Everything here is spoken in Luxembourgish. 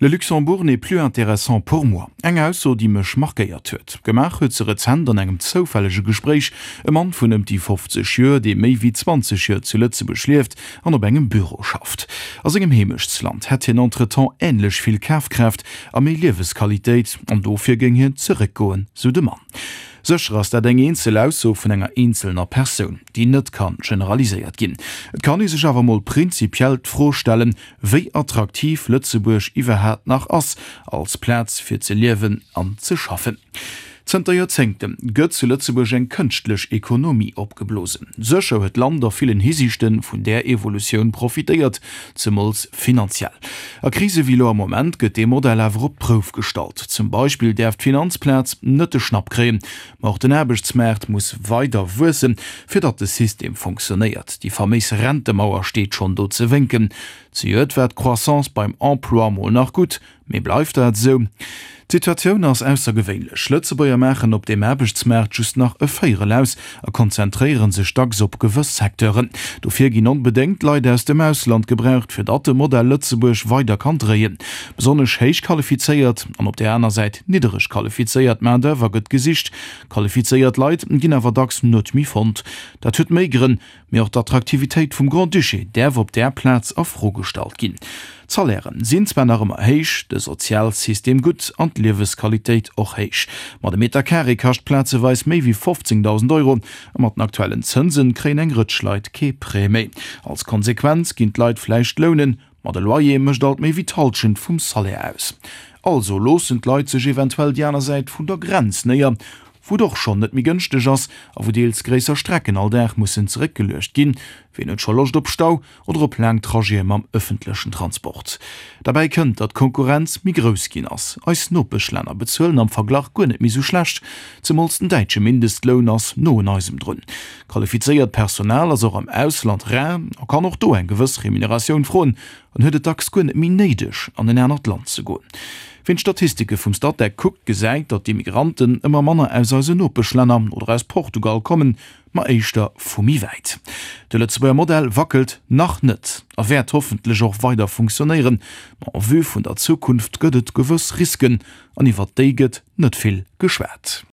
Le Luxembourg n'est plus intéressant pour moi. Eng Ausso, déi mech markéiert huet. Gemaach huet se rezent an engem zoufällege Gespréich e Mann vun ëm déi 50 Joer, dee méi wéi 20 Joer zu Lëtzebuerg lieft an op engem Büro schafft. A sengem Heemechtsland hätt hien entretemps änlech vill Kafkraaft a méi Liewesqualitéit an dofir géing hien zeréckgoen, sou de Mann. Sécher ass dat eng eenzel Ausso vun enger eenzelner Persoun, déi net ka generaliséiert ginn. Et kann ee sech awer mol prinzipiell d'Fro stellen, wéi attraktiv Lëtzebuerg iwwerhaat nach ass als Plaz fir ze liewen an ze schaffen. Zënter Joerzéngte gëtt zu Lëtzebuerg eng kënschtlech Ekonomie opgeblosen. Sécher huet d'Land a villen Hisiichte vun där Evolutioun profitéiert, zemools finanziell. A Krise wéi elo am Moment gëtt dee Modell awer op d'Prouf gestallt. Zum Beispill däerf d'Finanzplaz net de Schnapp kréien, Ma och den Aarbechtsmaart muss weider wuessen, fir datt de System fonctionnéiert. Déi faméis Rentemauer steet schonn do ze wénken. Zejoert war d'Croissance beim Emploi mol nach gutt, mee bleift dat esou? D'Situatioun ass aussergewéinlech. Lëtzebuerger maachen op deem Aarbechtsmaart just nach e Véierel aus a konzentréiere sech dacks op gewëss Secteuren. Dofir ginn onbedéngt Leit aus dem Ausland gebraucht, fir datt de Modell Lëtzebuerg weider kann dréien. Besonnesch héich qualifizéiert an op där aner Säit niddereg qualifizéiert Main d'oeuvre gëtt gesicht. Qualifizéiert Leit ginn awer dacks net méi fonnt. Dat huet méi Grënn, mee och d'Attraktivitéit vum Grand-Duché däerf op där Plaz a Fro gestallt ginn. D'Salairen sinn zwar nach ëmmer héich, de Sozialsystem gutt an d'Liewesqualitéit och héich, ma de Meter Carré kascht plazeweis méi wéi 15.000 Euro a mat den aktuellen Zënsen kréien eng Rëtsch Leit kee Prêt méi. Als Konsequenz ginn d'Leit vläicht lounen, Ma de Loyer mécht alt méi wéi d'Halschent vum Salaire aus. Also loossen d'Leit sech eventuell déi aner Säit vun der Grenz néier, wou et och schonn net méi gënschteg ass a wou deels gréisser Strecken all Dag mussen zeréckgeluecht ginn. Ween huet scho Loscht op Stau oder op laang Trajete mam ëffentlechen Transport? Derbäi kënnt, datt d'Konkurrenz méi grouss ginn ass. Eis Nopeschlänner bezuelen am Verglach guer net méi sou schlecht, zemools den däitsche Mindestloun ass no un eisem drun. Qualifizéiert Personal ass och am Ausland rar a kann och do eng gewëss Remuneratioun froen an huet et dacks guer net méi néideg, an en anert Land ze goen. Ween d'Statistike vum Statec kuckt, gesäit, datt d'Immigranten ëmmer manner aus eisen Nopeschlänner oder aus Portugal kommen, ma éischter vu méi wäit. De Lëtzebuerger Modell wackelt nach net a wäert hoffentlech och weider funktionéieren, ma en vue vun der Zukunft gëtt et gewëss Risken an iwwert déi gëtt net vill geschwat.